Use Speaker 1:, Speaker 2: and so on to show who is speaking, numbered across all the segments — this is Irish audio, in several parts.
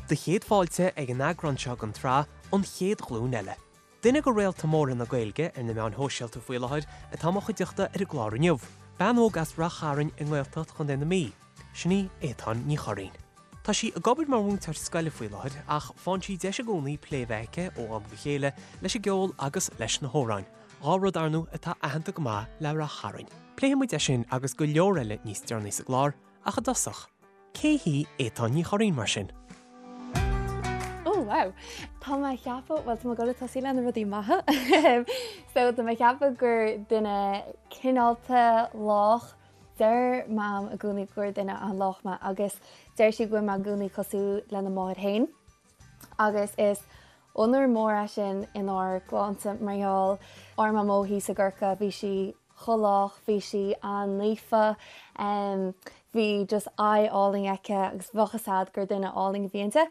Speaker 1: Do chéad fáilte ag an eagrán seo den tsraith An Chéad Ghlúin Eile. Duine de réalta móra na Gaeilge ar na meáin shóisialta faoi láthair atá i mo chuideachta ar an gclár inniu, bean óg as Rath Chairn i nGaeltacht Chontae na Mí, sin í Étáin Ní Churraoin. Tá sí ag obair mar mhúinteoir scoile faoi láthair ach faigheann sí deis i gcónaí plé a bheith aici ó am go chéile leis an gceol agus leis na hamhráin, 2 rud ar ndóigh atá aitheanta go maith le Rath Chairn. Pléifidh muid é sin agus go leor eile níos deireanaí sa gclár ach i dtosach, cé hí Étáin Ní Churraoin mar sin?
Speaker 2: Oh wow! Tá mé ag ceapadh, bhuel tá mé ag dul ag tosaí le na rudaí maithe. So tá mé ag ceapadh gur duine cineálta, lách, Deir Mam i gcónaí gur duine an-lách mé agus deir sí go bhfuil mé i gcónaí cosúil lena máthair féin agus is onóir mór é sin inár gclannsa mar gheall ár Mamó thíos i gCorcaigh, bhí sí chomh lách, bhí sí an-naofa, bhí just aghaidh álainn aici agus bheadh fhios a'd gur duine álainn a bhí inti.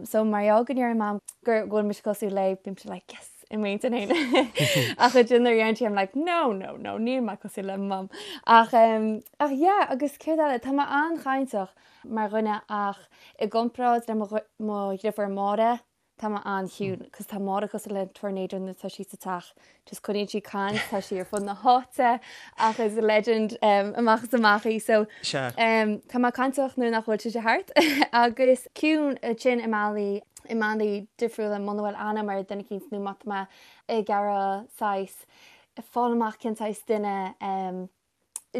Speaker 2: So mar gheall go ndeireann Mam go bhfuil mise cosúil léi, bímse like yes! i m'intinn féin. Ach ansin nuair a deireann sí I'm like no, no, no, níl mé cosúil le Mam. Ach um, ach yeah, agus céard eile, tá mé an-chainteach mar dhuine ach i gcomparáid le mo, mo dhriofúr Máire, tá mé an-chiúin, cos tá Máire cosúil le tornado nuair atá sí sa teach. Just coinníonn sí caint, tá sí ar fud na háite ach is legend um, amach is amach í. So um, tá mé cainteach nuair nach bhfuil sise thart agus ciúin ansin i mbealaí i mbealaí difriúla muna bhfuil aithne agam ar duine eicínt nó má tá mé ag iarraidh saghas fáil amach cén saghas duine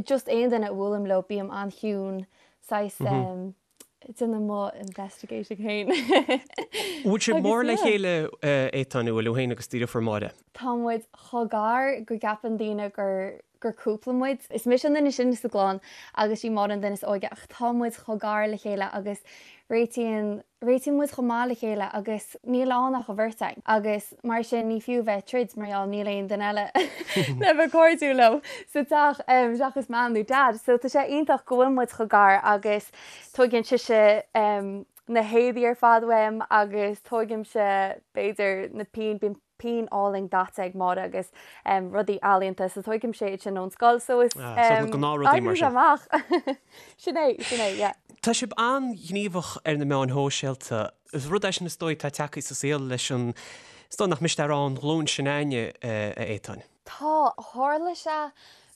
Speaker 2: just aon duine a bhuailim leo bím an-chiúin saghas déanamh mo investigating féin.
Speaker 1: Bhfuil sibh mór le chéile Étáin, an bhfuil tú féin agus do dheirfiúr Máire?
Speaker 2: Tá muid chomh gar go gceapann daoine gur gur cúpla muid. Is mise an duine is sine sa gclann agus sí Máire an duine is óige ach tá muid chomh gar le chéile agus réitíonn réitíonn muid chomh maith le chéile agus níl ann ach an bheirt againn agus mar sin ní fiú bheith ag troid mar gheall níl aon duine eile le bheith cairdiúil leo sa teach seachas Mam nó Dad. So tá sé iontach go bhfuil muid chomh gar agus tóigeann sise na héadaí ar fad uaim agus tógaimse b'fhéidir na pinn, bíonn pinn álainn daite ag Máire agus rudaí ealaíonta so tógaimse iad sin ón scoil so is
Speaker 1: Ah, so na gnáthrudaí mar
Speaker 2: sin. amach. Sin é, sin é, yeah.
Speaker 1: Tá sibh an-ghníomhach ar na meáin shóisialta. Is rud é sin is dóigh atá tagtha sa saol leis an, is dóigh nach miste a rá an ghlúin sin againne, a Étáin.
Speaker 2: Tá, tharla sé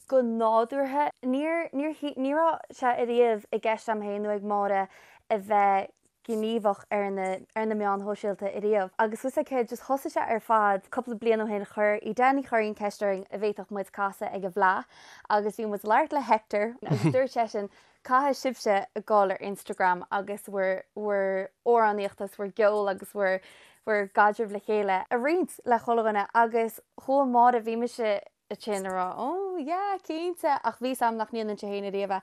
Speaker 2: go nádúrtha. Níor, níor, ní raibh sé ariamh i gceist agam féin nó ag Máire a bheith gníomhach ar na ar na meáin shóisialta ariamh agus bhfuil a fhios agat céard just thosaigh sé ar fad cúpla bliain ó shin chuir Edel Ní Churraoin ceist orainn an bhféadfadh muid casadh ag an bhFleadh agus bhí muid ag labhairt le Hector agus dúirt seisean caithfidh sibhse a ghabháil ar Instagram agus bhur bhur amhránaíocht agus bhur gceol agus bhur bhur gcaidreamh le chéile a roinnt le chuile dhuine agus chuaigh Máire bhí mise ansin ag rá oh yeah cinnte ach bhí 's a'm nach ndéanfainnse féin ariamh é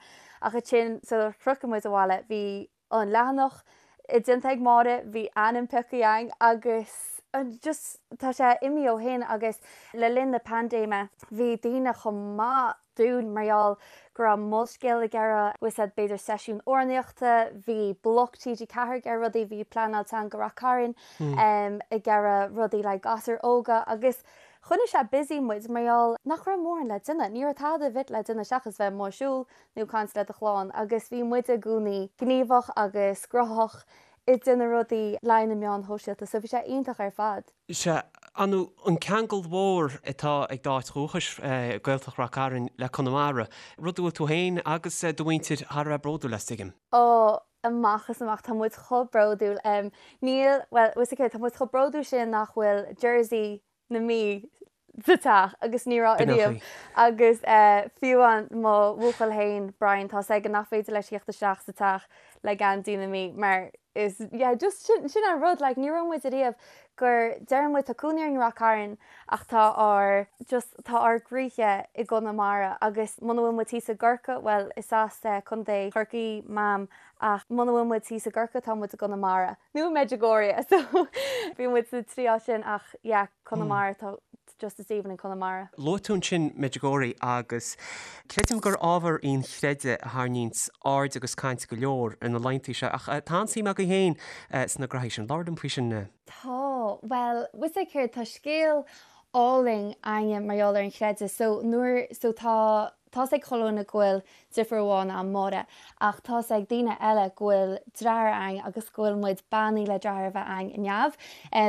Speaker 2: ach ansin sular shroich muid abhaile bhí an leathanach déanta ag Máire, bhí ainm pioctha againn agus just tá sé imithe ó shin agus le linn na paindéime bhí daoine chomh maith dúinn mar gheall go raibh Molscéal ag iarraidh, bhfuil a fhios agat b'fhéidir seisiún amhránaíochta, bhí Bloc TG4 ag iarraidh rudaí, bhí Pleanáil Teanga Rath Cairn ag iarraidh rudaí le gasúir óga agus choinnigh sé busy muid mar gheall nach raibh mórán le déanamh, ní raibh tada ar bith le déanamh seachas bheith amuigh ag siúl nó caint le do chlann agus bhí muid i gcónaí gníomhach agus cruthaitheach ag déanamh rudaí le na meáin shóisialta so bhí sé iontach ar fad.
Speaker 1: Sea, an an ceangal mhór atá ag d'áit dhúchais, Gaeltacht Rath Cairn, le Conamara, rud a bhfuil tú féin agus do mhuintir thar a bheith bródúil as, tuigim.
Speaker 2: Ó, amach is amach, tá muid chomh bródúil. Níl, bhuel, bhfuil a fhios agat, tá muid chomh bródúil sin nach bhfuil jersey na Mí sa teach agus ní raibh ariamh agus fiú amháin mo bhuachaill féin Brian tá 's aige nach féidir leis theacht isteach sa teach le geansaí na Mí mar is yeah just sin sin an rud like ní raibh muid ariamh gur deireann muid tá cónaí orainn i Rath Cairn ach tá ár just tá ár gcroíthe i gConamara agus muna bhfuil muid thíos i gCorcaigh bhuel is as Contae Chorcaí Mam ach muna bhfuil muid thíos i gCorcaigh tá muid i gConamara. Nó i Medjugorje so bhí muid sa trí áit sin ach yeah Conamara tá just is aoibhinn in Conamara.
Speaker 1: Luaigh tú ansin Medjugorje agus creidim gur ábhar í an chreideamh a tharraingíonns aird agus caint go leor ar na laethanta seo ach tá an-suim agaibh féin sna graithí sin. Labhair liom faoi sin.
Speaker 2: Tá, bhuel, bhfuil a fhios agat céard, tá scéal álainn againne mar gheall ar an chreideamh so nuair, so tá. Tá's ag chuile dhuine go bhfuil deirfiúr amháin a'm, Máire, ach tá's ag daoine eile go bhfuil deartháir a'ainn agus go bhfuil muid beannaithe le deartháir a bheith a'ainn i neamh.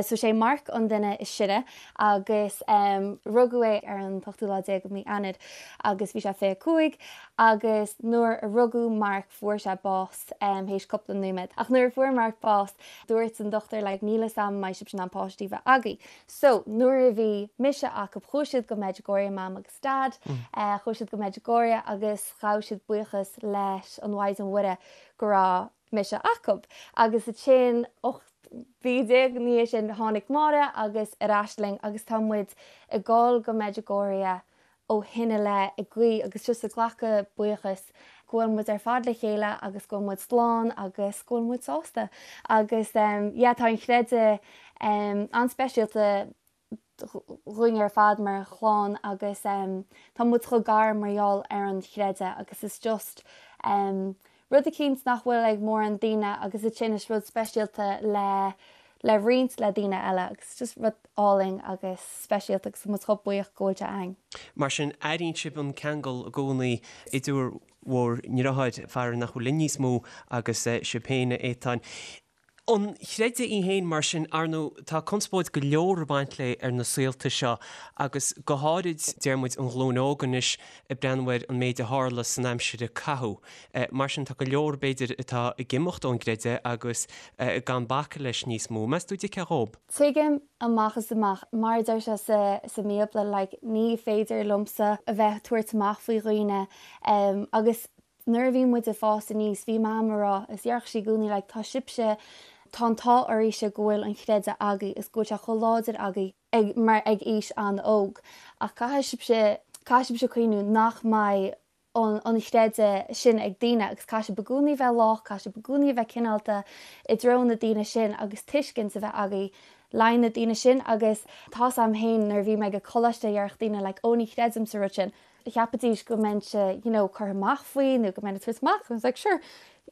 Speaker 2: So sé Mark an duine is sine agus rugadh é ar an t-ochtú lá déag de mí Eanáir agus bhí sé 25 agus nuair a rugadh Mark fuair sé bás théis cúpla nóiméad. Ach nuair a fuair Mark bás dúirt an dochtúir like níl 'fhios a'm an mbeidh sibhse in ann páistí a bheith agaibh. So nuair a bhí mise acu chuaigh siad go Medjugorje, Mam agus Dad, chuaigh siad go Medjugorje agus ghabh siad buíochas leis an Mhaighdean Mhuire go raibh mise acu. Agus ansin 18 mhí ina dhiaidh sin tháinig Máire agus ar ais linn agus tá muid ag dul go Medjugorje ó shin i leith ag guí agus just ag glacadh buíochas go bhfuil muid ar fad le chéile agus go bhfuil muid slán agus go bhfuil muid sásta. Agus yeah tá an chreideamh an-speisialta dhúinn ar fad mar chlann agus tá muid chomh gar mar gheall ar an chreideamh agus is just rud eicínt nach bhfuil ag mórán daoine agus ansin is rud speisialta le le roinnt le daoine eile agus just rud álainn agus speisialta agus tá muid chomh buíoch go bhfuil sé againn.
Speaker 1: Mar sin, airíonn sibh an ceangal i gcónaí idir bhur ndeartháir, fear nach bhfuil linn níos mó, agus sibh féin, a Étáin. An chreideamh í féin, mar sin, ar ndóigh, tá conspóid go leor ag baint léi ar na saolta seo agus go háirid, deir muid, an ghlúin óg anois ag breathnú ar an méid a tharla san aimsir a caitheadh. Mar sin, tá go leor, b'fhéidir, atá ag imeacht ón gcreideamh agus gan bacadh leis níos mó. Meas tú an dtuigfeá dhób?
Speaker 2: Tuigim amach is amach. Mar a deir sé sa sa mBíobla, like, ní féidir liomsa a bheith ag tabhairt amach faoi dhaoine agus Nuair a bhí muid ag fás aníos, bhí Mam a rá, is déarfadh sí i gcónaí like tá sibhse, tá an t-ádh oraibhse go bhfuil an chreideamh agaibh is go bhfuil sé chomh láidir agaibh ag, mar ag aois an-óg. Ach caithfidh sibhse, caithfidh sibhse cuimhniú nach mbeidh an, an chreideamh sin ag daoine agus caithfidh sibh i gcónaí bheith lách, caithfidh sibh i gcónaí a bheith cineálta i dtreo na daoine sin agus tuiscint a bheith agaibh le haghaidh na daoine sin agus tá's a'm féin nuair a bhí mé ag coláiste dhéarfadh daoine like ó ní chreidim sa rud sin. cheapfaidís go mbeinnse you know curtha amach faoi nó go mbeinn ag tabhairt amach I was like sure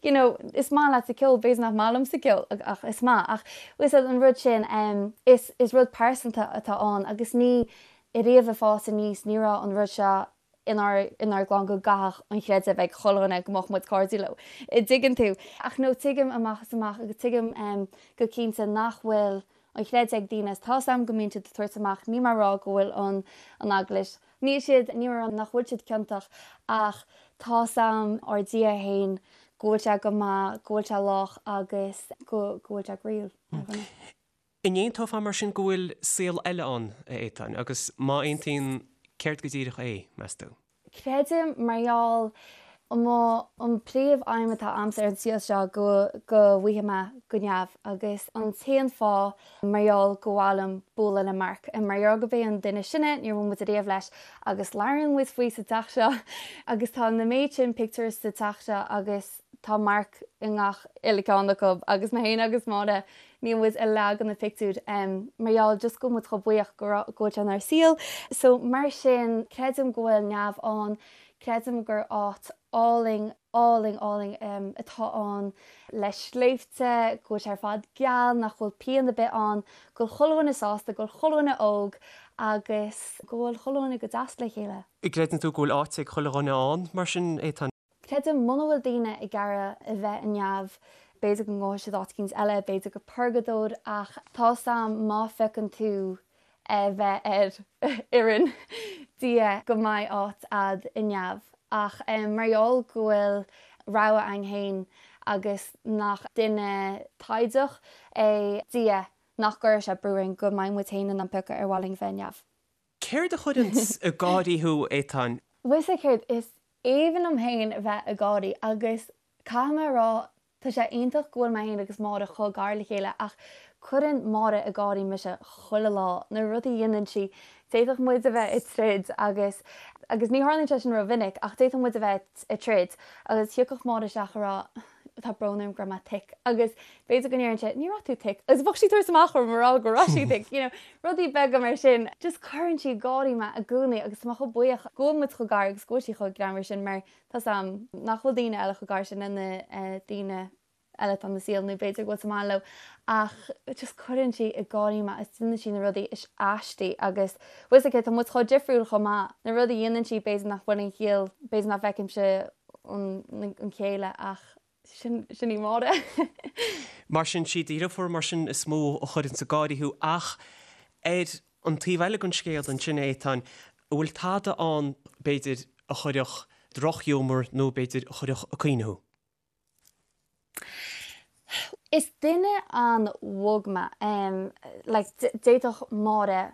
Speaker 2: you know is maith leatsa ceol b'fhéidir nach maith liomsa ceol ach is maith ach bhfuil fhios an rud sin um, is, is rud pearsanta atá ann agus ní riamh ag fás aníos ní raibh an rud seo inár, inár gclann go gcaithfeadh an chreideamh ag chuile dhuine go mbeadh muid cairdiúil leo. An dtuigeann tú. Ach no tuigim amach is amach agus tuigim um, go cinnte nach bhfuil an chreideamh ag daoine is tá's a'm go mbíonn siad ag tabhairt amach níl mé ag rá go bhfuil an, an eaglais Níl siad, níl mé ag rá nach bhfuil siad ciontach ach tá's a'm ár Dia fhéin go bhfuil sé go maith, go bhfuil sé lách agus go go bhfuil sé groíúil
Speaker 1: ar dhuine. An aontófá mar sin go bhfuil saol eile ann, a Étáin, agus má aontaíonn, céard go díreach é, meas tú?
Speaker 2: Creidim, mar gheall, mo, an príomh aidhm atá a'msa ar an saol seo go go bhfaighidh mé go neamh agus an t-aon fáth mar gheall gur mhaith liom bualadh le Mark. Mar gheall gurb é an duine is sine, níor bhuail muid ariamh leis agus labhraíonn muid faoi sa teach seo agus tá na méid sin pictiúr sa teach seo agus tá Mark i ngach uile ceann acu agus mé féin agus Máire níl muid i leath de na pictiúir mar gheall just go bhfuil muid chomh buíoch go raibh go bhfuil sé inár saol. So mar sin creidim go bhfuil neamh ann, creidim gur áit álainn álainn, álainn atá ann le sléibhte, go bhfuil sé ar fad geal, nach bhfuil pian ar bith ann, go bhfuil chuile dhuine sásta, go bhfuil chuile dhuine óg agus go bhfuil chuile dhuine go deas le chéile.
Speaker 1: Gcreideann tú go bhfuil áit ag chuile dhuine ann, mar sin, Étáin?
Speaker 2: Creidim, muna bhfuil daoine ag iarraidh a bheith i neamh, b'fhéidir go ngabhfaidh siad áit eicínt eile, b'fhéidir go purgadóir, ach tá's a'm má phiocann tú a bheith ar fhoireann Dia go mbeidh áit a'd i neamh. Ach mar gheall go bhfuil rogha a'inn fhéin agus nach duine taighdeach é Dia nach gcuirfidh sé brú orainn go mbeidh muid fhéin in ann piocadh ar mhaith linn bheith i neamh.
Speaker 1: Céard a chuireanns ag gáirí thú, Étáin?
Speaker 2: Bhfuil 'fhios a'd céard, is aoibhinn liom fhéin a bheith ag gáirí agus caithfidh mé a rá Tá sé iontach go bhfuil mé féin agus Máire chomh gar le chéile ach cuireann Máire ag gáirí mise chuile lá, na rudaí a dhéanann sí. D'fhéadfadh muid a bheith ag troid agus, agus ní tharlaíonn sé sin rómhinic, ach d'fhéadfadh muid a bheith ag troid agus thiocfadh Máire isteach a rá tá brón orm go raibh mé thick agus b'fhéidir go ndéarfainnse ní raibh tú thick agus bheadh sí ag tabhairt amach orm a rá go raibh sí thick, you know, rudaí beaga mar sin. Just cuireann sí ag gáirí mé i gcónaí agus tá mé chomh buíoch go bhfuil muid chomh gar agus go bhfuil sí chomh greannmhar sin mar Tá's a'm nach bhfuil daoine eile chomh gar sin lena daoine. eile atá ina saol nó b'fhéidir go bhfuil sa maith leo ach just cuireann sí ag gáirí mé agus déanann sí na rudaí is aistí agus bhfuil 's aici tá muid chomh difriúil chomh maith na rudaí a dhéanann sí b'fhéidir nach bhfuil an chiall b'fhéidir nach bhfeicimse an chéile ach sin sin í Máire.
Speaker 1: Mar sin sí do dheirfiúr mar sin is mó a chuireanns ag gáirí thú ach ar an taobh eile den scéal ansin Étáin, an bhfuil tada ann b'fhéidir a chuirfeadh drochghiúmar nó b'fhéidir a chuirfeadh ag caoineadh thú?
Speaker 2: Is duine an-bhog mé. Like, d'fhéadfadh Máire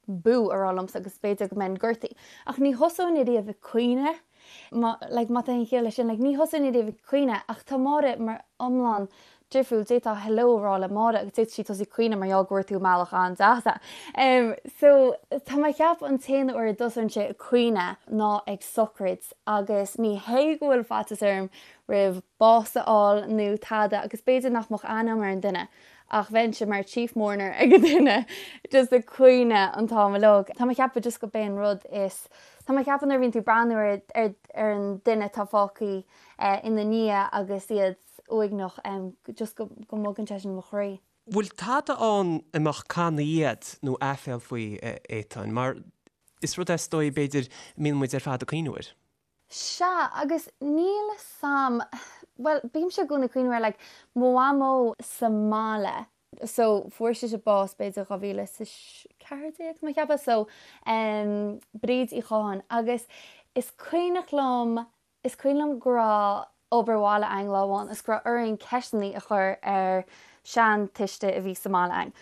Speaker 2: bú a rá liomsa agus b'fhéidir go mbeinn gortaithe. Ach ní thosóinn ariamh ag caoineadh. Má, like, má tá aon chiall leis sin, like, ní thosóinn ariamh ag caoineadh ach tá Máire mar iomlán difriúil. D'fhéadfá hello a rá le Máire agus d'fhéadfadh sí tosú ag caoineadh mar gheall go bhfuair tú i mbealach an-deas é. Em, so, tá mé ag ceapadh an t-aon uair a dtosóinnse ag caoineadh ná ag sochraid agus ní hé go bhfuil faitíos orm roimh bás a fháil nó tada agus b'fhéidir nach mbeadh aithne agam ar an duine ach bheinnse mar chief mourner ag an duine just ag caoineadh an t-am uilig. Tá mé ag ceapadh just go b'é an rud is, tá mé ag ceapadh nuair a bhíonn tú ag breathnú ar ar ar an duine atá fágtha ina ndiaidh agus iad uaigneach just go go mbogann sé sin mo chroí.
Speaker 1: Bhfuil tada ann a mbeadh cannaí agat nó aiféal faoi, a Étáin? Mar is rud é is dóigh b'fhéidir a mbíonn muid ar fad ag cuimhneamh air.
Speaker 2: Sea, agus níl 'fhios a'm, bhuel, bímse i gcónaí ag cuimhneamh ar like mo mhamó sa mbaile, so fuair sise bás b'fhéidir 2014 tá mé ag ceapadh, so em Bríd Uí Chatháin agus is cuimhneach liom, is cuimhin liom go raibh obair bhaile a'inn lá amháin is go raibh orainn ceisteannaí a chur ar seantuiste a bhí sa mbaile a'inn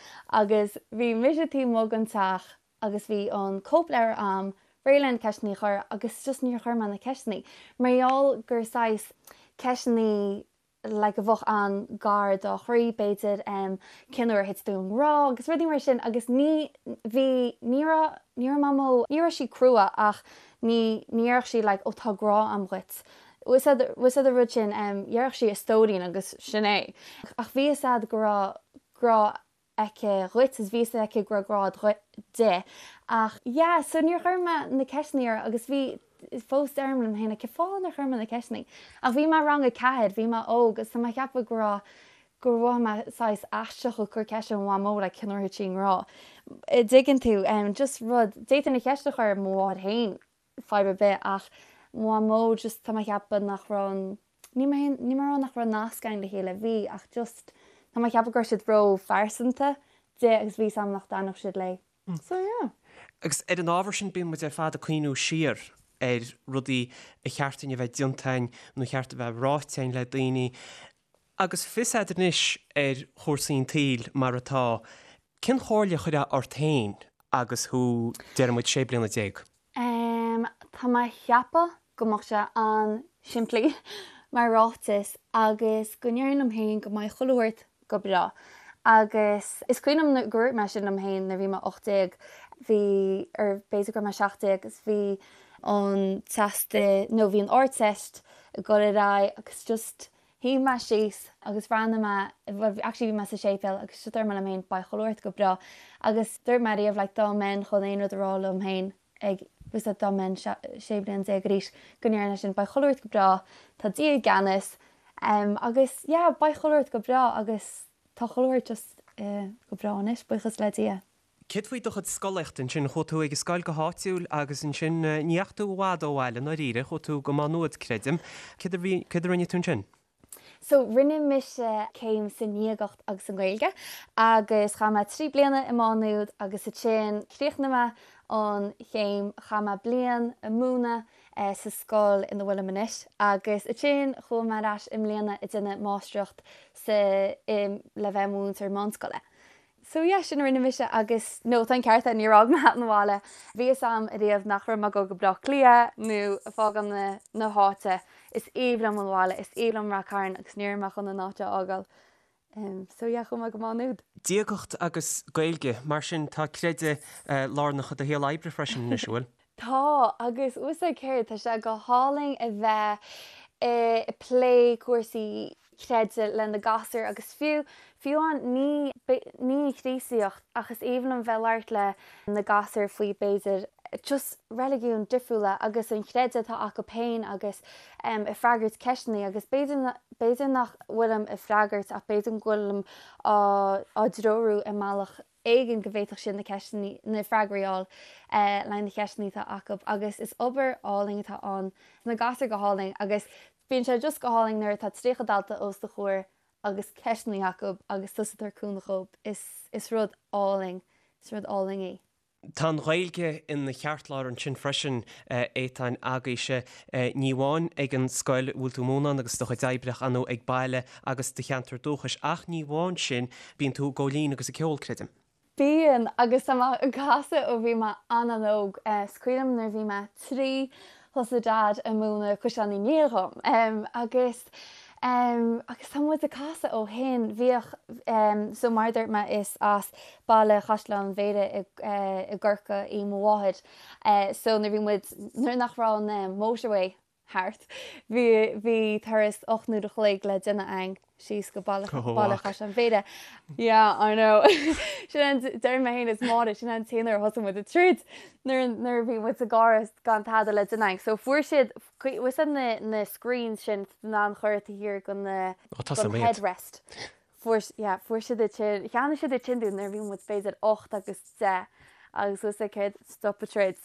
Speaker 2: agus bhí mise taobh amuigh den teach agus bhí an cóipleabhar a'm réidh le na ceisteannaí a chur agus just níor chuir mé na ceisteannaí mar gheall gur saghas ceisteannaí like a bheadh an-gar dá chroí b'fhéidir em cén uair a thit tú i ngrá agus rudaí mar sin agus ní bhí ní raibh ní raibh mamó ní raibh sí crua ach ní ní dhéarfadh sí like ó tá grá a'm dhuit bhfuil 's a'd bhfuil 's a'd an rud sin em dhéarfadh sí a stóirín agus sin é ach bhí 'fhios a'd go raibh grá aici dhuit is bhí 'fhios aici go raibh grá di ach yeah so níor chuir mé na ceisteannaí uirthi agus bhí fós deirim liom féin like cén fáth nár chuir mé na ceisteannaí ach bhí mé rang 4 bhí mé óg agus tá mé ag ceapadh go raibh gur mhothaigh mé saghas aisteach ag cur ceist ar mo mhamó like cén uair a thit sí i ngrá an dtuigeann tú um just rud d'fhéadfainn an cheist a chur ar mo mháthair féin fadhb ar bith ach mo mhamó just tá mé ag ceapadh nach raibh an ní mé ní mé a rá nach raibh nasc againn le chéile bhí ach just tá mé ag ceapadh go raibh siad ró-phearsanta di agus bhí 'fhios a'm nach dtaitneodh siad léi. So yeah.
Speaker 1: Agus ar an ábhar sin bíonn muid ar fad ag cuimhniú siar ar rudaí a cheart dúinn a bheith déanta againn nó a cheart a bheith ráite againn le daoine. Agus fios agat anois ar chúrsaí an tsaoil mar atá, cén chomhairle a chuirfeá ort féin agus thú, déarfaidh muid, 16 bliana?
Speaker 2: Em, tá mé a cheapadh go mbeadh sé an-simplí mar ráiteas agus go ndéarfainn liom féin go mbeidh chuile shórt go breá. Agus is cuimhin liom gur dhúirt mé sin liom féin nuair a bhí mé 18, bhí, or b'fhéidir go raibh mé 17 agus bhí an teastas, nó bhí an Ardteist ag dul ar aghaidh agus just Shuigh mé síos agus bhreathnaigh mé, bhuel actually bhí mé sa séipéal agus just dúirt mé liom féin beidh chuile shórt go breá agus dúirt mé riamh like dá mbeinn chun aon rud a rá liom féin ag bhfuil 's a'd dá mbeinn 16 bliana arís go ndéarfainn é sin beidh chuile shórt go breá tá Dia i gceannas um, agus yeah beidh chuile shórt go breá agus tá chuile shórt just uh, go breá anois buíochas le Dia.
Speaker 1: Céard faoi do chuid scolaíochta ansin? Chuaigh tú ag an scoil go háitiúil agus ansin ní dheachaigh tú i bhfad ó bhaile i ndáiríre, chuaigh tú go Má Nuad, creidim. Céard a bhí, céard a rinne tú ansin?
Speaker 2: So, rinne mise céim sa ndiagacht agus sa nGaeilge agus chaith mé 3 bliana i Má Nuad agus ansin chríochnaigh mé an chéim, chaith mé bliain ag múineadh sa scoil ina bhfuilim anois agus ansin chuaigh mé ar ais i mbliana ag déanamh máistreacht sa, i, le bheith i mo mhúinteoir meánscoile. So yeah, sin a rinne mise agus no, tá an ceart agat, níor fhág mé an bhaile. Bhí fhios a'm ariamh nach raibh mé ag dul go Bleá Cliath nó ag fágáil na, na háite. Is aoibhinn liom an bhaile, is aoibhinn liom Rath Cairn agus ní raibh mé chun an áit a fhágáil. Um, so yeah, chuaigh mé go Má Nuad.
Speaker 1: Diagacht agus Gaeilge, mar sin tá creideamh lárnach i do shaol oibre freisin anois, an bhfuil?
Speaker 2: Tá, agus bhfuil 's a'd céard, tá sé go hálainn a bheith ag plé cúrsaí creidimh le na gasúir agus fiú, fiú amháin ní, ní an Chríostaíocht ach is aoibhinn liom bheith ag labhairt le na gasúir faoi b'fhéidir. just reiligiúin difriúla agus an chreideamh atá acu féin agus ag freagairt ceisteanna agus b'fhéidir b'fhéidir nach bhfuilim ag freagairt ach b'fhéidir go bhfuilim á á dtreorú i mbealach éigin go bhféadfadh siad na ceisteanna, na freagraí a fháil le haghaidh na ceisteanna atá acu agus is obair álainn atá ann. Tá na gasúir go hálainn agus bíonn sé just go hálainn nuair atá 30 dalta os do chomhair agus ceisteanna acu agus tusa ag tabhairt cúnamh dhóibh. Is, is rud álainn, is rud álainn é.
Speaker 1: Tá an Ghaeilge ina cheartlár ansin freisin, Étáin, agaibhse, ní amháin ag an scoil a bhfuil tú ag múineadh ann agus do chuid oibre ach ar ndóigh ag baile agus do cheantar dúchais ach ní amháin sin, bíonn tú ag gabháil fhoinn agus ag ceol, creidim.
Speaker 2: Bíonn, agus tá mé ag casadh ó bhí mé an-an-óg. Is cuimhin liom nuair a bhí mé 3, thosaigh Dad ag múineadh Caisleán Uí Néill dhom agus agus tá muid ag casadh ó shin. Bhíodh, so mar a dúirt mé is as baile Chaisleán Bhéarra i gCorcaigh í mo mháthair so nuair bhí muid, nuair nach raibh an motorway thart, bhí, bhí turas 8 n-uair a chloig le déanamh againn síos go baile, baile Chaisleán Bhéarra. Yeah, I know. Sin an, deir mé féin is Máire, sin an t-aon uair a thosaigh muid ag troid nuair, nuair a bhí muid sa gcarr gan tada le déanamh againn. So fuair siad, bhfuil fhios a'd na, na screens sin in ann chur taobh thiar den, den headrest. Fuair, yeah, fuair siad iad sin, cheannaigh siad iad sin dúinn nuair a bhí muid b'fhéidir 8 agus 10 agus bhfuil fhios a'd céard, stop an troid.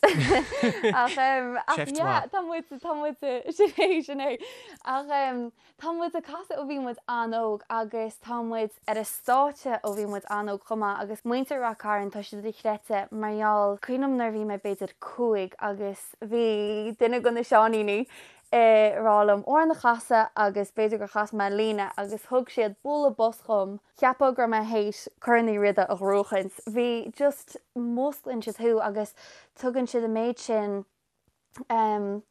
Speaker 2: Ach em, ach
Speaker 1: Seift
Speaker 2: yeah,
Speaker 1: mhaith.
Speaker 2: tá muid, tá muid, sin é, sin é. Ach em, tá muid ag casadh ó bhí muid an-óg agus tá muid ar an stáitse ó bhí muid an-óg chomh maith agus muintir Rath Cairn, tá siad dochreidte mar gheall, cuimhin liom nuair a bhí mé b'fhéidir 5 agus bhí duine de na seáiníní ag rá liom amhrán a chasadh agus b'fhéidir gur chas mé líne agus thug siad bualadh bos dhom, cheapfá go raibh mé théis Corn Uí Riada a ghnóchaint. Bhí just músclaíonn siad thú agus tugann siad an méid sin em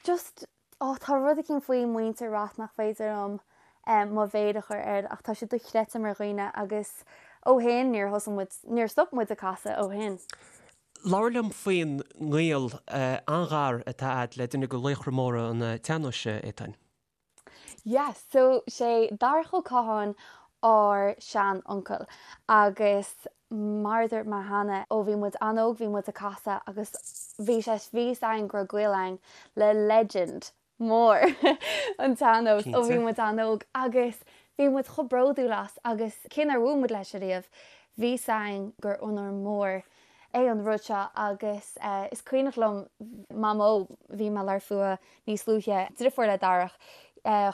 Speaker 2: just oh tá rud eicínt faoi muintir Rath nach féidir liom em mo mhéar a chur air ach tá siad dochreidte mar dhaoine agus ó shin níor thosaigh muid, níor stop muid ag casadh ó shin.
Speaker 1: Labhair liom faoin ngaol an-ghar atá a'd le duine de laochra móra an tsean-nóis, Étáin.
Speaker 2: Yes, so sé Darach Ó Catháin ár sean-uncail agus mar a dúirt mé cheana, ó bhí muid an-óg bhí muid ag casadh agus bhí sé, bhí fhios a'inn go raibh gaol a'inn le legend mór an tsean-nós ó bhí muid an-óg agus bhí muid chomh bródúil as agus cé nár bhuail muid leis ariamh, bhí fhios a'inn gur onóir mór é an rud seo agus is cuimhneach liom Mamó, bhí mé ag labhairt fúithi níos luaithe, driofúr le Darach,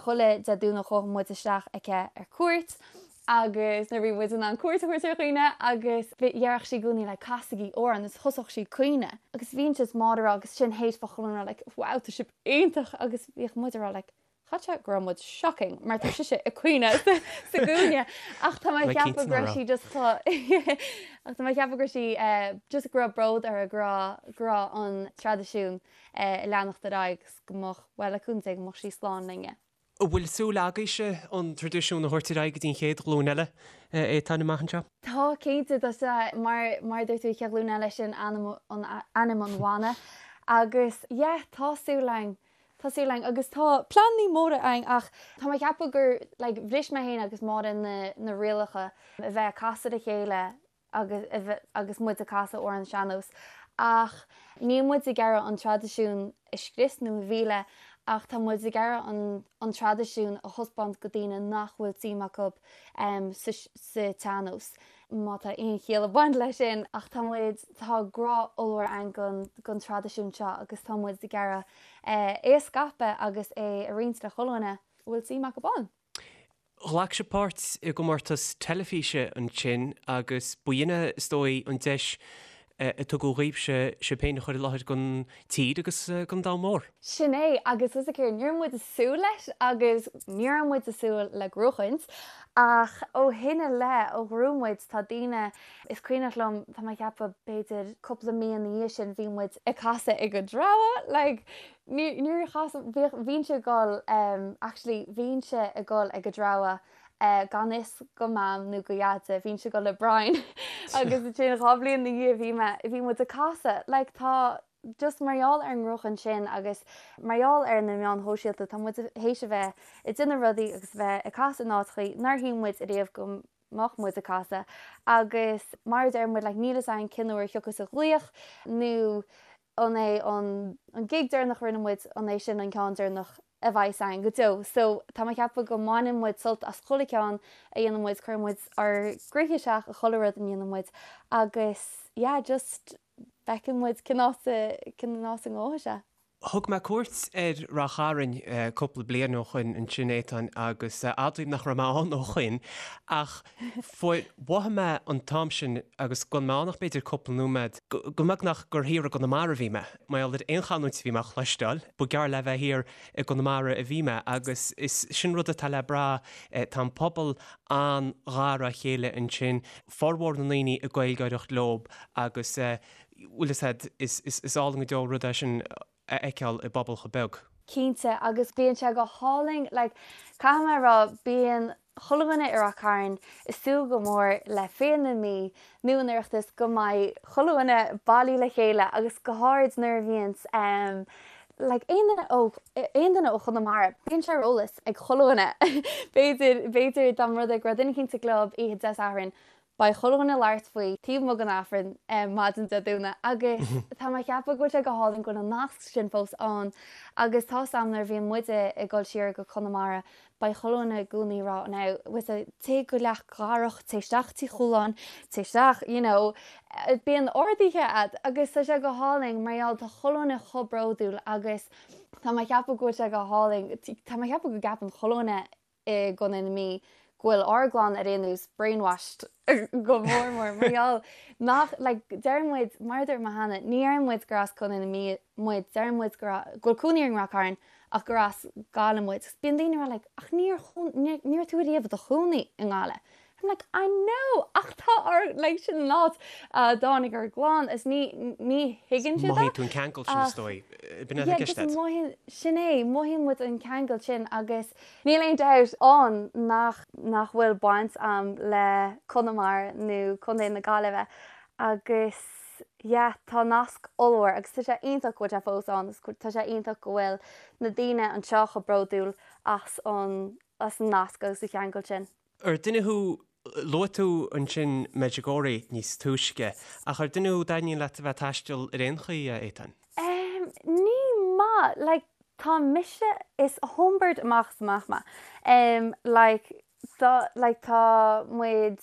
Speaker 2: chuile Dé Domhnaigh chuaigh muid isteach aici ar cuairt agus nuair a bhí muid in ann cuairt a thabhairt ar dhaoine agus déarfadh sí i gcónaí like casaigí amhrán agus thosódh sí ag caoineadh agus bhínnse is Máire ag rá agus sin théis fá chuile dhuine ag rá like wow tá sibh iontach agus bhíodh muid ag rá like chaithfeadh sé go raibh muid shocking mar tá sise ag caoineadh sa gcúinne ach tá mé ag ceapadh go raibh sí just chomh ach tá mé ag ceapadh go raibh sí just go raibh bród uirthi go raibh go raibh an traidisiún ag leanacht ar aghaidh agus go mbeadh bhuel le cúnamh Dé go mbeadh sí slán linne.
Speaker 1: An bhfuil súil agaibhse an traidisiún a thabhairt ar aghaidh go dtí an chéad ghlúin eile, Étáin, amach anseo?
Speaker 2: Tá, cinnte. Tá sé, mar, mar a dúirt tú, an chéad ghlúin eile, sin ainm an, ainm an bhanna. Agus, yeah, tá súil againn, tá súil againn agus tá pleananna móra againn ach tá mé ag ceapadh gur, like, bhris mé féin agus Máire na, na rialacha a bheith ag casadh le chéile agus agus muid ag casadh amhrán sean-nós ach níl muid ag iarraidh an traidisiún a scrios nó a mhilleadh ach tá muid ag iarraidh an an traidisiún a thaispeáint go daoine nach bhfuil suim acu sa sa tsean-nós má tá aon chiall ag baint leis sin ach tá muid tá grá ollmhór againn don don traidisiún seo agus tá muid ag iarraidh é a scaipeadh agus é a roinnt le chuile dhuine a bhfuil suim acu ann.
Speaker 1: Ghlac sibh páirt i gcomórtas teilifíse ansin agus ba shin é, is dóigh, an deis a tugadh dhaoibhse sibh féin a chur i láthair don tír agus don domhan mór.
Speaker 2: Sin é, agus is céard, ní raibh muid ag súil leis agus ní raibh muid ag súil le gnóchaint ach ó shin i leith, ó ghnóthaigh muid, tá daoine, is cuimhneach liom, tá mé ag ceapadh b'fhéidir cúpla mí ina dhiaidh sin bhí muid ag casadh ag an dtreabhadh, like, Níor chas, bhíodh, bhínnse ag dul, actually bhínnse ag dul ag an dtreabhadh gan fhios go Mam nó go Dheaide, bhínnse ag dul le Brian agus ansin dhá bhliain ina dhiaidh bhí mé, bhí muid ag casadh, like tá, just mar gheall ar an ngnóchan sin agus mar gheall ar na meáin shóisialta tá muid théis a bheith ag déanamh rudaí agus a bheith ag casadh in áiteachaí nár shíl muid ariamh go mbeadh muid ag casadh agus mar a deir muid like níl fhios againn cén uair a thiocfas an glaoch nó. An é an an gig deireanach a rinne muid, an é sin an ceann deireanach a bheidh againn go deo? So tá mé ag ceapadh go mbaineann muid sult as chuile ceann a dhéanann muid, cuireann muid ár gcroíthe isteach i chuile rud a ndéanann muid agus yeah just feiceann muid cén áit a cén áit a ngabhfaidh sé.
Speaker 1: Thug mé cuairt ar Ráth Chairn cúpla bliain ó shoin ansin, Étáin, agus admhaím nach raibh mé ann ó shoin, ach fuair, mhothaigh mé an t-am sin, agus gan mé ann ach b'fhéidir cúpla nóiméad, go mbeagnach gur thiar i gConamara a bhí mé. Mar gheall ar aon chanúint a bhí mé a chloisteáil, ba gearr le bheith thiar i gConamara a bhí mé, agus is sin rud atá le brath, tá an pobal an-ghar dá chéile ansin, formhór na ndaoine ag Gaeilgeoireacht leob agus bhfuil fhios a'd, is álainn go deo rud é sin a fheiceáil i bpobal chomh beag.
Speaker 2: Cinnte, agus bíonn sé go hálainn, like, caithfidh mé a rá, bíonn chuile dhuine i Ráth Cairn ag súil go mór le Féile na Mí nó an Oireachtas go mbeidh chuile dhuine bailí le chéile agus go háirid nuair a bhíonns em like aon duine ó aon duine ó Chonamara, bíonn sé ar eolas ag chuile dhuine b'fhéidir b'fhéidir dá mba rud é go raibh duine eicínt sa gclub oíche Dé Sathairn Beidh chuile dhuine ag labhairt faoi taobh amuigh den Aifreann maidin Dé Domhnaigh agus tá mé ag ceapadh go bhfuil sé go hálainn go bhfuil an nasc sin fós ann agus tá 's a'm nuair a bhíonn muide ag dul siar go Conamara beidh chuile dhuine i gcónaí ag rá now bhfuil 's a'd téigh go Leac Dharach, téigh isteach Tí Chualáin, téigh isteach you know bíonn orduithe a'd agus tá sé go hálainn mar gheall tá chuile dhuine chomh bródúil agus tá mé ag ceapadh go bhfuil sé go hálainn tá mé ag ceapadh go gceapann chuile dhuine i gContae na Mí go bhfuil ár gclann ar aon nós brainwashed go mór mór mar gheall nach like deireann muid mar a dúirt mé cheana ní deireann muid gur as Contae na Mí muid deireann muid go go bhfuil cónaí orainn i Ráth Cairn ach gur as Gaillimh muid agus bíonn daoine ag rá like ach níor ní raibh tú ariamh i do chónaí i nGaillimh I'm like I know ach tá ár like sin an áit a dtáinig ár gclann is ní ní thuigeann siad
Speaker 1: Mothaíonn tú an ceangal sin is dóigh. B'in é
Speaker 2: yeah just mothaíonn sin é mothaíonn muid an ceangal sin agus níl aon dabht ann nach nach bhfuil baint a'm le Conamara nó Contae na Gaillimhe agus yeah tá nasc ollmhór agus tá sé iontach go bhfuil sé fós ann agus tá sé iontach go bhfuil na daoine anseo chomh bródúil as an as an nasc agus an cheangal sin.
Speaker 1: Ar duine thú, luaigh tú ansin Medjugorje níos túisce, ach ar duine thú a dtaitníonn leat a bheith ag taisteal ar aon chaoi, a Étáin?
Speaker 2: Em, ní maith, like, tá mise, is homebird amach is amach mé. Em, like, tá, like, tá muid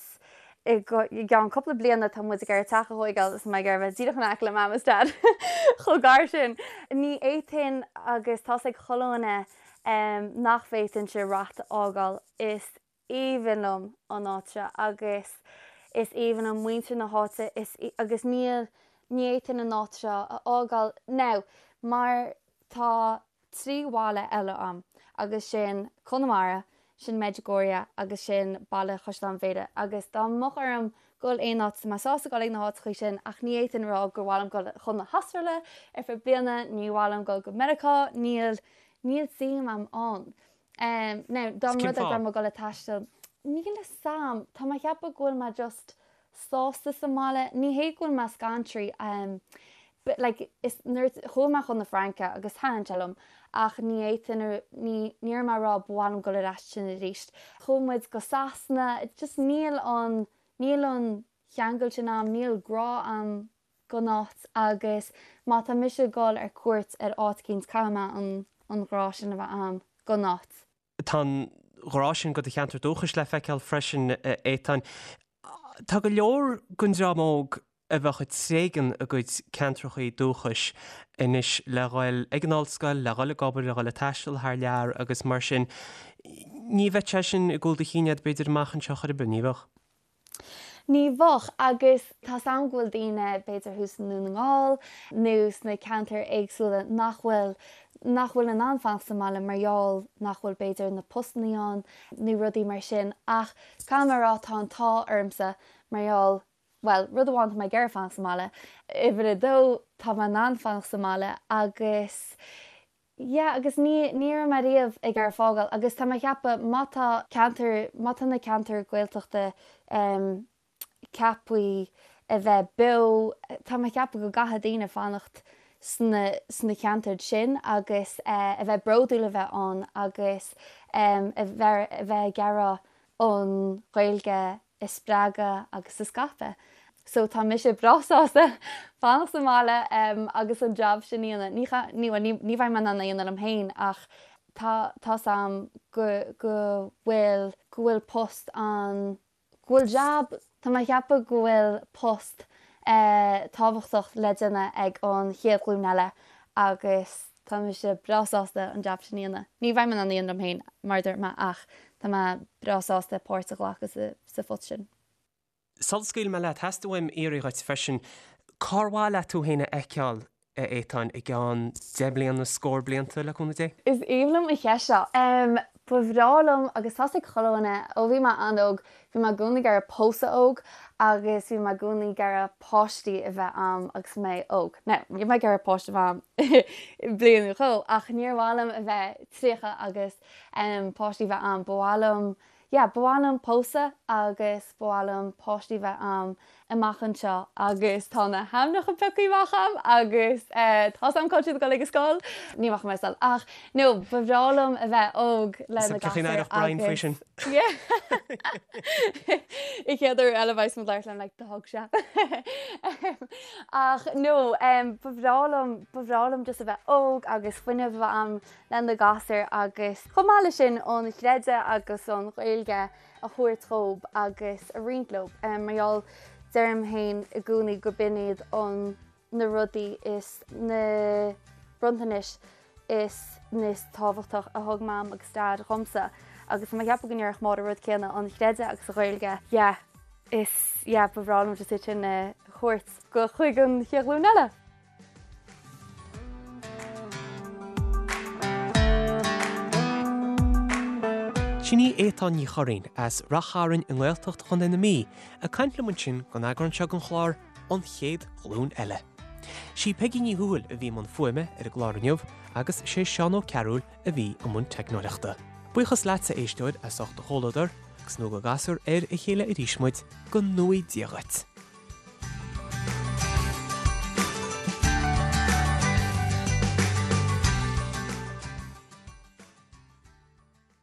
Speaker 2: i gceann cúpla bliana tá muid ag iarraidh teach a thóigeáil is mé ag iarraidh bheith díreach in aice le mam is dad chomh gar sin. Ní fhéadfainn agus tá's ag chuile dhuine em, nach bhféadfainnse Rath a fhágáil. Is aoibhinn liom an áit seo agus is aoibhinn liom muintir na háite is agus níl, ní fhéadfainn an áit seo a fhágáil. Now, mar tá 3 bhaile eile a'm agus sin Conamara, sin Medjugorje agus sin Baile Chaisleáin Bhéarra agus dá mbeadh orm dul aon áit, tá mé sásta dul ag na háiteachaí sin ach ní fhéadfainn a rá gur mhaith liom dul chun na hAstráile ar feadh bliana, ní mhaith liom dul go Meiriceá, níl, níl suim a'm ann. Now, dá mba rud é go raibh mé ag dul ag taisteal, níl fhios a'm, tá mé ag ceapadh go bhfuil mé just sásta sa mbaile, ní hé go bhfuil mé scantraithe, but like is nuair chuaigh mé chun na Fraince agus thaitin sé liom ach ní fhéadfainn ní ní raibh mé ag rá ba mhaith liom dul ar ais sin arís. Chuaigh muid go Sasana, just níl an níl an cheangal sin a'm, níl grá a'm don áit agus má tá mise ag dul ar cuairt ar áit eicínt caithfidh mé an an ghrá sin a bheith a'm don áit.
Speaker 1: Tá an ghrá sin do do cheantar dúchais le feiceáil freisin, a Étáin. Tá go leor den dream óg a bheadh ag tréigean a gcuid ceantrachaí dúchais anois le dhul ag an ollscoil, le dhul ag obair, le dhul ag taisteal thar lear agus mar sin. Ní bheadh sé sin i gcúl do chinn agat b'fhéidir amach anseo chor ar bith, ní bheadh?
Speaker 2: Ní bheadh, agus tá's a'm go bhfuil daoine, b'fhéidir thuas i nDún na nGall nó sna ceantair éagsúla nach bhfuil, nach bhfuil in ann fanacht sa mbaile mar gheall nach bhfuil b'fhéidir na postannaí ann nó rudaí mar sin ach caithfidh mé a rá tá an t-ádh ormsa mar gheall, bhuel, rud amháin tá mé ag iarraidh fanacht sa mbaile, uimhir a dó tá mé in ann fanacht sa mbaile agus Yeah agus ní, ní raibh mé riamh ag iarraidh fágáil agus tá mé ag ceapadh má tá ceantar, má tá na ceantair Gaeltachta em ceaptha a bheith beo, tá mé ag ceapadh go gcaithfidh daoine fanacht sna, sna ceantair sin agus eh a bheith bródúil a bheith ann agus em a bheith, a bheith ag iarraidh an Ghaeilge a spreagadh agus a scaipeadh. So tá mise breá sásta fanacht sa mbaile agus an jab sin a dhéanamh. Ní ní bhuel ní ní bheidh mé in ann é a dhéanamh liom féin ach tá tá's a'm go go bhfuil go bhfuil post an go bhfuil jab tá mé a cheapadh go bhfuil post tábhachtach le déanamh ag an chéad ghlúin eile agus tá mise breá sásta an jab sin a dhéanamh. Ní bheidh mé in ann é a dhéanamh liom féin mar a dúirt mé ach tá mé breá sásta páirt a ghlacadh sa sa phost sin.
Speaker 1: Sula scaoilfidh mé leat, theastaigh uaim iarraidh dhuit freisin, cár mhaith leat tú féin a fheiceáil, a Étáin, i gceann deich mbliana, scór blianta, le cúnamh Dé?
Speaker 2: Is aoibhinn liom an cheist seo. Ba bhreá liom, agus tá's ag chuile dhuine, ó bhí mé an-óg, bhí mé i gcónaí ag iarraidh pósadh óg agus bhí mé i gcónaí ag iarraidh páistí a bheith a'm agus mé óg. Now, níl mé ag iarraidh páiste a bheith a'm i bliain nó dhó, ach níor mhaith liom a bheith 30 agus páistí a bheith a'm. Ba mhaith liom Yeah, ba mhaith liom pósadh agus ba mhaith liom páistí bheith a'm amach anseo agus tá na hainmneacha pioctha amach a'm agus eh tá's a'm cá bhfuil siad ag dul ag an scoil. Ní rachaidh mé ar scoil ach no, ba bhreá liom a bheith óg le na
Speaker 1: gasúir Brian faoi sin.
Speaker 2: Yeah. An chéad uair eile bheidh muid ag labhairt liom like do thug sé. Ach no, em ba bhreá liom, ba bhreá liom just a bheith óg agus fuinneamh a bheith a'm le na gasúir agus chomh maith leis sin an chreideamh agus an Ghaeilge a thabhairt dhób agus a roinnt leo mar gheall deirim féin i gcónaí go b'in iad an na rudaí is na bronntanais is is tábhachtach a thug Mam agus Dad dhomsa agus tá mé ag ceapadh go ndéarfadh Máire rud céanna an chreideamh agus an Ghaeilge yeah is yeah ba bhreá liom just iad sin a thabhairt go chuig an chéad ghlúin eile.
Speaker 1: Sin í Étáin Ní Churraoin as Rath Chairn i nGaeltacht Chontae na Mí ag caint liom ansin don eagrán seo den chlár An Chéad Ghlúin Eile. Sí Peigí Ní Thuathail a bhí i mbun fuaime ar an gclár inniu agus sé Seán Ó Cearúil a bhí i mbun teicneoireachta. Buíochas leatsa, a éisteoir, as ucht do chomhluadar agus nó go gcasfar ar a chéile arís muid, go ngnóthaí Dia dhuit.